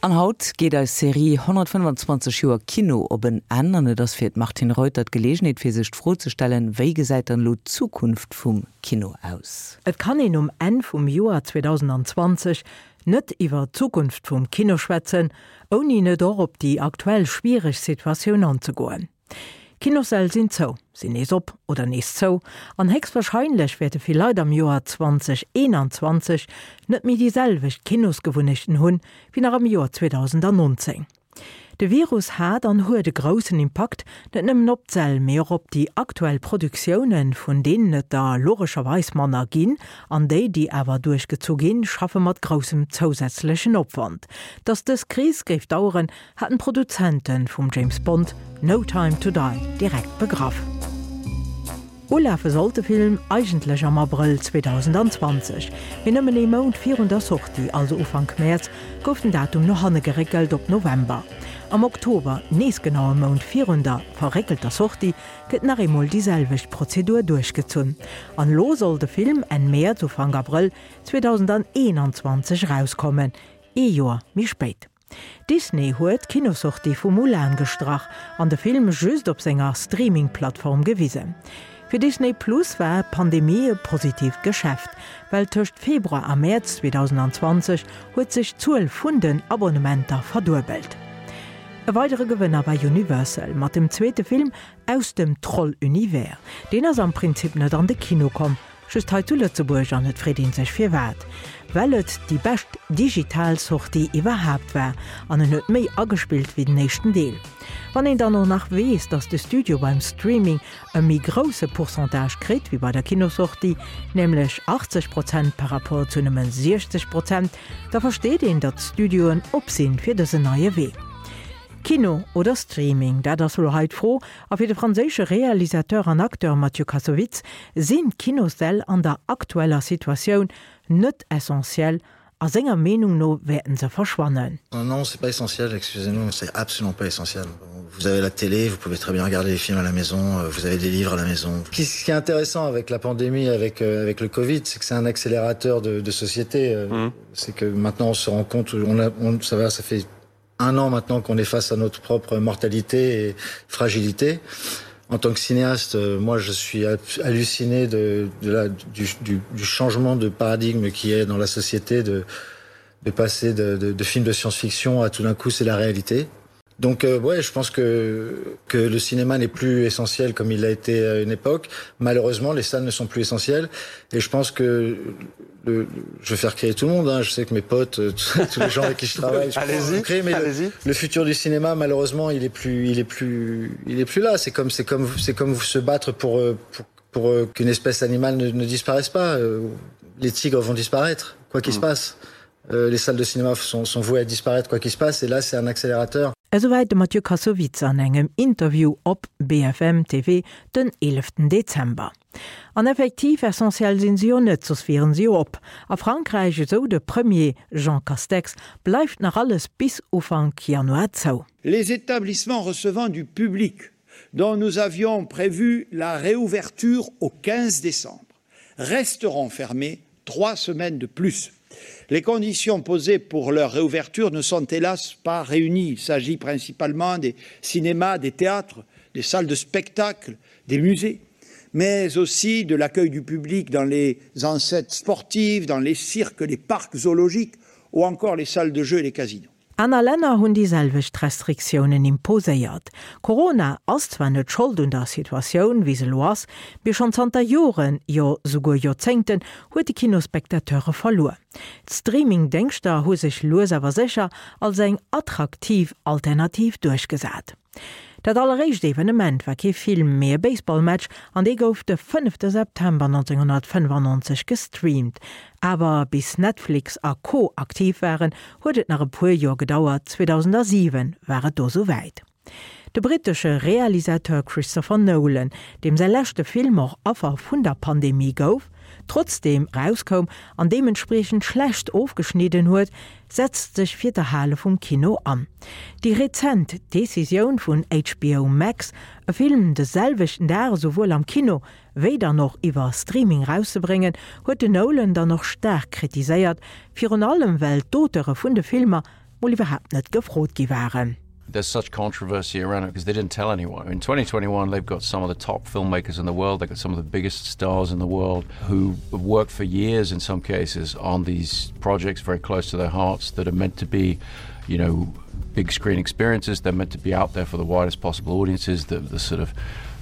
An haut geet eis Serie 125 Joer Kino op en Enn an et ass fir d'Martine Reuter d'Geleegenheet fir sech d'Fro ze stellen, wéi gesäit dann elo d'Zukunft vum Kino aus? Et kann een um Enn vum Joer 2020 net iwwer d'Zukunft vum Kino schwätzen, ouni net och op déi aktuell schwiereg Situatioun anzegoen. Kinossäll sinn zou, sinn nees op oder nees zou an héchstwahrscheinlech wäerte vill Leit am Joer 2021 net méi déi selwecht Kinosgewunnechten hunn, wéi nach am Joer 2019. De Virus hat an huet e groussen Impakt net nëmmen op d'Säll, mee och op déi aktuell Produktiounen, vun deenen et der logescherweis manner ginn, an déi, déi awer duerchgezu ginn, schaffe mat groussem zousätzlechen Opwand. Datt dës Kris géif daueren, haten d'Produzente vum James Bond No Time to Die direkt begraff. Ulafe sollt de Film eigentlech am Abrëll 2020, mee nëmmen ee Mount virun der Sortie, also Ufank Mäerz, gouf den Datum no hanne geréckelt op November. Am Oktober, nees genau e Mount virun der verréckelter Sortie, gëtt nach eemol déi selwecht Prozedur duerchgezunn. An elo soll de Film Enn Mäerz, Ufank Abrëll 2021 erauskommen, ee Joer méi spéit. Disney huet d'Kinossortie vu Mulan gestrach an de Film just op senger Streaming-Plattform gewisen. Fir Disney Plus war d'Pandemie e positiivt Geschäft, well tëscht Februar a Mäerz 2020 huet sech d'Zuel vun den Abonnementer verduebelt. E weidere Gewënner war Universal mat dem zweete Film aus dem Troll-Univers. Deen ass am Prinzip net an de Kino komm, Just hei zu Lëtzebuerg, an et freet een sech firwat, well et déi bescht digital Sortie iwwerhaapt war an en huet méi agespillt wéi den éischten Deel. Wann een dann och nach weess, dass de Studio beim Streaming e méi grousse Pourcentage kritt wéi bei der Kinossortie, nämlech 80 Prozent par rapport zu nëmme 60 Prozent, da versteet een, datt d'Studioen op sinn fir dësen neie Wee. Kino oder Streaming, dat ass elo hei d'Fro, A fir de franséische Realisateur an Acteur Mathieu Kassovitz sinn d'Kinossäll an der aktueller Situatioun net essentiell a senger Meenung no wäerten se verschwannen. Non, c'est pas essentiel, excusez-nous, mais c'est absolument pas essentiel. Vous avez la télé, vous pouvez très bien regarder les films à la maison, vous avez des livres à la maison. Ce qui est intéressant avec la pandémie, avec, avec le Covid, c'est que c'est un accélérateur de, de société. Mmh. C'est que maintenant on se rend compte, on a, on, ça va, ça fait un an maintenant qu'on est face à notre propre mortalité et fragilité. En tant que cinéaste, moi je suis halluciné de, de la, du, du, du changement de paradigme qui est dans la société de, de passer de, de, de films de science-fiction à tout d'un coup c'est la réalité. Donc euh, ouais, je pense que, que le cinéma n'est plus essentiel comme il l'a été à une époque. Malheureusement, les salles ne sont plus essentielles et je pense que le, je vais faire créer tout le monde hein. je sais que mes potes tous les gens avec qui je travaille allez-y créer, mais allez le, le futur du cinéma malheureusement il est plus il est plus il est plus là c'est comme c'est comme c'est comme vous se battre pour pour, pour qu'une espèce animale ne, ne disparaisse pas les tigres vont disparaître quoi qu'il mmh. se passe euh, les salles de cinéma sont, sont vouées à disparaître quoi qu'il se passe et là c'est un accélérateur. Esouwäit de Mathieu Kassovitz an engem Interview op BFM TV den 11 Dezember. An effektiv, essentiell sinn se jo net, soss wieren se jo op. A Frankräich, esou de Premier Jean Castex, bleift nach alles bis Ufank Januar zou. Les établissements recevant du public dont nous avions prévu la réouverture au 15 décembre resteront fermés trois semaines de plus. Les conditions posées pour leur réouverture ne sont hélas pas réunies. Il s'agit principalement des cinémas, des théâtres, des salles de spectacle, des musées, mais aussi de l'accueil du public dans les ancêtres sportives, dans les cirques, les parcs zoologiques ou encore les salles de jeux et les casinos. Aner Länner hunn déi selwecht Restriktiounen imposéiert. Corona ass zwar net Schold un der Situatioun, wéi se elo ass, mee schonn zanter Joren, jo souguer Joerzéngten, huet de Kino Spectateure verluer. D'Streaming-Déngschter hu sech lues awer sécher als eng attraktiv Alternativ duerchgesat. Dat alleréischt Evenement war kee Film, mee e Baseballmatch an dee gouf de fënnefte September 1995 gestreamt. Awer bis Netflix a Co aktiv waren, huet et nach e puer Joer gedauert, 2007 war et do souwäit. De brittesche Realisateur Christopher Nolan, deem säi leschte Film och Affer vun der Pandemie gouf, trotzdeem erauskoum an deementspriechend schlecht ofgeschnidden huet, setzt sech fir d'Erhale vum Kino an. Déi rezent Decisioun vun HBO Max, e Film de selwechten Dag esouwuel am Kino wéi dann och iwwer Streaming erauszebréngen, huet den Nolan dann och staark kritiséiert, virun allem well d'Auteure vun de Filmer. mol iwwerhaapt net gefrot gi waren. There's such controversy around it because they didn't tell anyone. In 2021, they've got some of the top filmmakers in the world, they've got some of the biggest stars in the world who have worked for years in some cases on these projects very close to their hearts that are meant to be, you know, big screen experiences. They're meant to be out there for the widest possible audiences, the, the sort of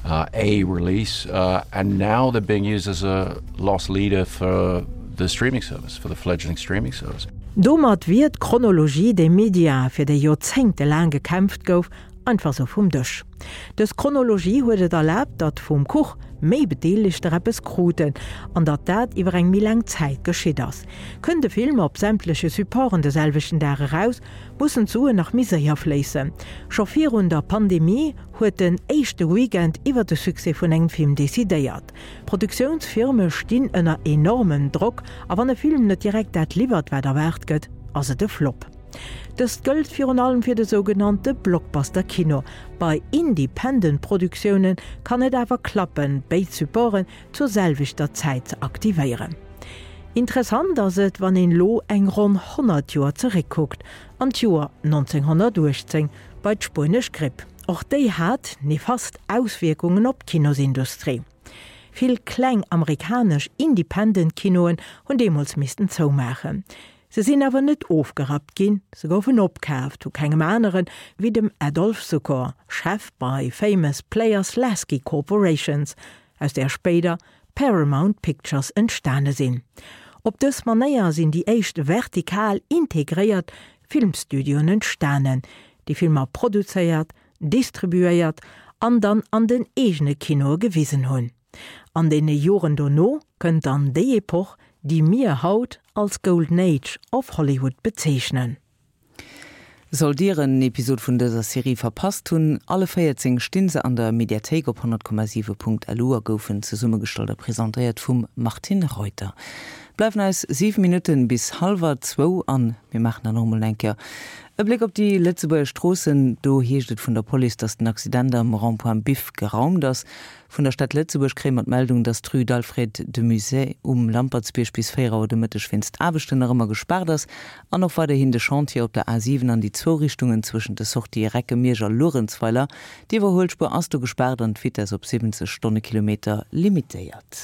uh, a release uh, and now they're being used as a loss leader for the streaming service for the fledgling streaming service. Domat wier d'Chronologie des médias, fir déi joerzéngtelaang gekämpft gouf, einfach sou vum Dësch. Dës Chronologie huet et erlaabt, datt vum Kuch méi Bedeelegter eppes kruten an datt dat iwwer eng méi laang Zäit geschitt ass. Kënnt e Film op sämtleche Supporten de selwechten Dag eraus, mussen d'Suen nach méi séier fléissen. Scho virun der Pandemie huet den éischte Weekend iwwer de Succès vun engem Film decidéiert. D'Produktiounsfirme stinn ënner enormem Drock a wann e Film net direkt dat liwwert, wat erwaart gëtt, ass et e Flop. Dëst gëllt virun allem fir de sougenannte Blockbuster-Kino. Bei Independent-Produktioune kann et awer klappen, béid Supporten zur selwechter Zäit ze aktivéieren. Interessant ass et, wann een elo eng ronn 100 Joer zeréckkuckt, an d'Joer 1918 bei d'spuenesch Gripp. Och déi hat nefast Auswierkungen op d'Kinosindustrie. Vill kleng amerikanesch Independent-Kinoen hunn deemools missten zoumaachen. Se sinn awer net ofgerappt ginn, se goufen opkaaft vu kengem aneren wéi dem Adolph Zukor, Chef bei Famous Players-Lasky Corporations, aus där spéider Paramount Pictures entstane sinn. Op dës Manéier sinn déi éischt vertikal integréiert Filmstudioen entstanen, déi Filmer produzéiert, distribuéiert an dann an den eegene Kinoe gewisen hunn. An deene Joren dono kënnt dann déi Epoch, déi mir haut als Golden Age of Hollywood bezeechnen. Sollt Dir en Episod vun dëser Serie verpasst hunn, alle 14 stinn se an der Mediathéik op 100,7.lu a goufen zesummegestallt a presentéiert vum Martine Reuter. Bleiwen eis 7 Minutten bis hallwer zwou an mir maachen dann och emol eng Kéier e Bléck op déi Lëtzebuerger Stroossen. Do heescht et vun der Police, dass den Accident am Rond-point Biff geraumt ass. Vun der Stad Lëtzebuerg kréie mer d'Meldung, dass d'Rue d'Alfred de Musset um Lampertsbierg bis 4 Auer de Mëtteg wéinst Aarbechten nach ëmmer gespaart ass an och weiderhin de Chantier op der A7 an déi zwou Richtungen zwëschent de Sortië Recke-Miersch a Luerenzweiler. D'Iwwerhuelspuer ass do gespaart an d'Vitess op 70 Stonnekilometer limitéiert.